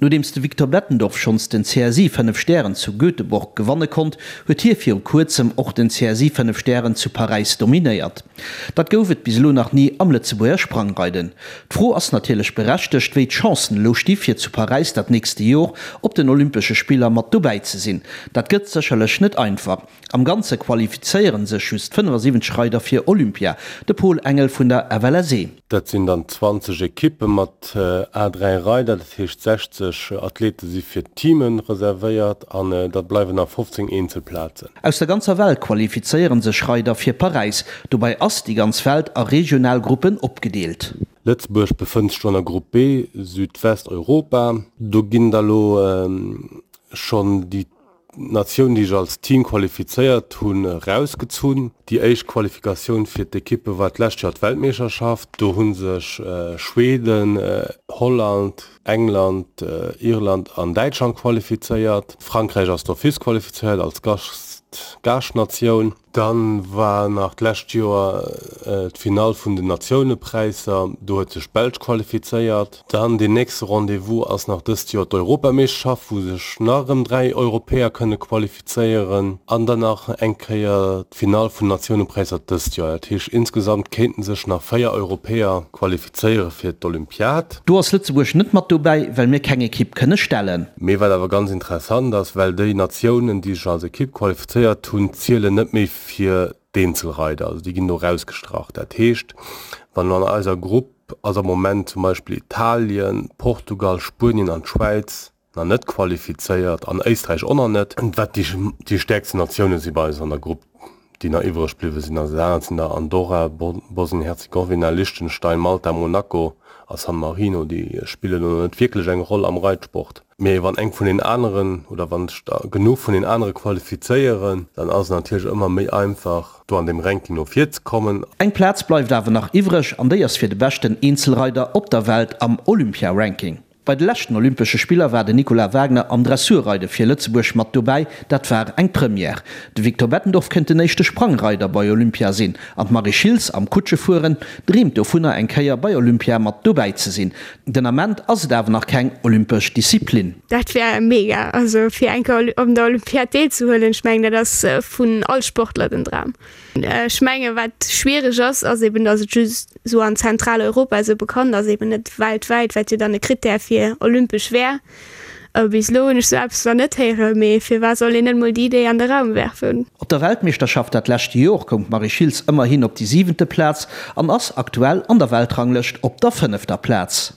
Nodeems de Victor Bettendorf schonns den CSI 5 Stären zu Göteborg gewanne konnt, huet hie viru kuerzem och den CSI 5 Stären zu Paräis dominéiert. Dat gouf et bis elo nach ni am Lëtzebuerger Sprangreiden. D'Fro ass natierlech berechtegt, wéi d'Chancen elo sti fir zu Paräis dat nächste Jor op den Olympesche Spiller mat dobäi ze sinn. Dat gëtt sécherlech net einfach. Am Ganze qualifizéiere sech just 75 Reider fir Olympia. De Paul Engel vun der FLSE. Dat sinn dann 20 Ekippe mat a 3 Reider, dat heescht 60 Athlete si fir d'Teame reservéiert an da bleiwen nach 15 Eenzelplazen. Aus der ganzer Welt qualifizéiere sech Reider fir Paräis. Dobäi ass déi ganz Welt a regional Gruppen opgedeelt. Lëtzebuerg befënnt sech do an der Grupp B, Südwesteuropa. Do ginn da lo schonn déi Natioun, déi sech als Team qualifizéiert hunn, erausgezunn. Déi éischt Qualifikatioun fir d'Ekippe war d'lescht Joer d'Weltmeeschterschaft. Do hu sech Schweden, Holland, England, Irland an Däitschland qualifizéiert. Frankräich ass d'office qualifizéiert als Gaaschtnatioun. Dann war nach d'lescht Joer d'Finall vun den Natiounepräisser, do huet sech d'Belsch qualifizéiert. Dann deen nächste Rendez-vous ass nach dëst Joer d'Europameeschterschaft, wou sech nach erëm 3 Europäer kënne qualifizéieren. An dann nach eng Kéier d'Finall vun den Natiounepräisser dëst Joer. Dat heescht insgesamt kéinten sech nach 4 Europäer qualifizéiere fir d'Olympiad. Do ass Lëtzebuerg net mat dobäi, well mir keng Ekipp kënne stellen. Mee wat awer ganz interessant ass, well déi Natiounen, déi sech als Ekipp qualifizéiert hunn, zielen net méi fir d'Eenzelreider, also déi ginn do erausgestrach. Dat heescht, wann elo an eiser Grupp ass am Moment zum Beispill Italien, Portugal, Spuenien an d'Schwäiz nach net qualifizéiert an Éisträich och nach net, wat déi stäerksten Natioune si bei eis an der Grupp. déi nach iwwreg bliwwe sinn. Also dat anert sinn da Andorra, Bosnien-Herzegowina, Liechtenstein, Malta, Monaco a San Marino. Déi spillen elo net wierklech eng Roll am Reitsport. Mee wann eng vun den aneren oder wann sech der genuch vun den anere qualifizéieren, dann ass et natierlech ëmmer méi einfach, do an deem Ranking no vir ze kommen. Eng Plaz bleift awer nach iwwreg an déi ass fir de beschten Eenzelreider op der Welt am Olympia-Ranking. Bei de leschten Olympesche Spiller war den Nicolas Wagner am Dressurreide fir Lëtzebuerg mat dobäi. Dat war eng Première. De Victor Bettendorf kéint den éischte Sprangreider bei Olympia sinn. An d'Marie Schiltz am Kutschefueren dreemt dovunner eng Kéier bei Olympia mat dobäi ze sinn. Den Ament ass et awer nach keng olympesch Disziplin. Dat wär mega, also fir eng Kéier op der Olympiad deelzehuelen. Ech mengen dat ass vun all Sportler den Dram. Ech menge wat schwiereg ass, ass eben, datt et just esou an Zentraleuropa esou bekannt ass, eben net weltwäit, wat jo dann e Krittär fir olympesch wär. Bis elo hunn ech sou eppes nach net héieren, mee firwat soll een net mol déi Idee an de Raum werfen? Op der Weltmeeschterschaft dat leschte Jor koum d'Marie Schiltz ëmmerhin op déi siwente Plaz an ass aktuell an der Weltranglëscht op der fënnefter Plaz.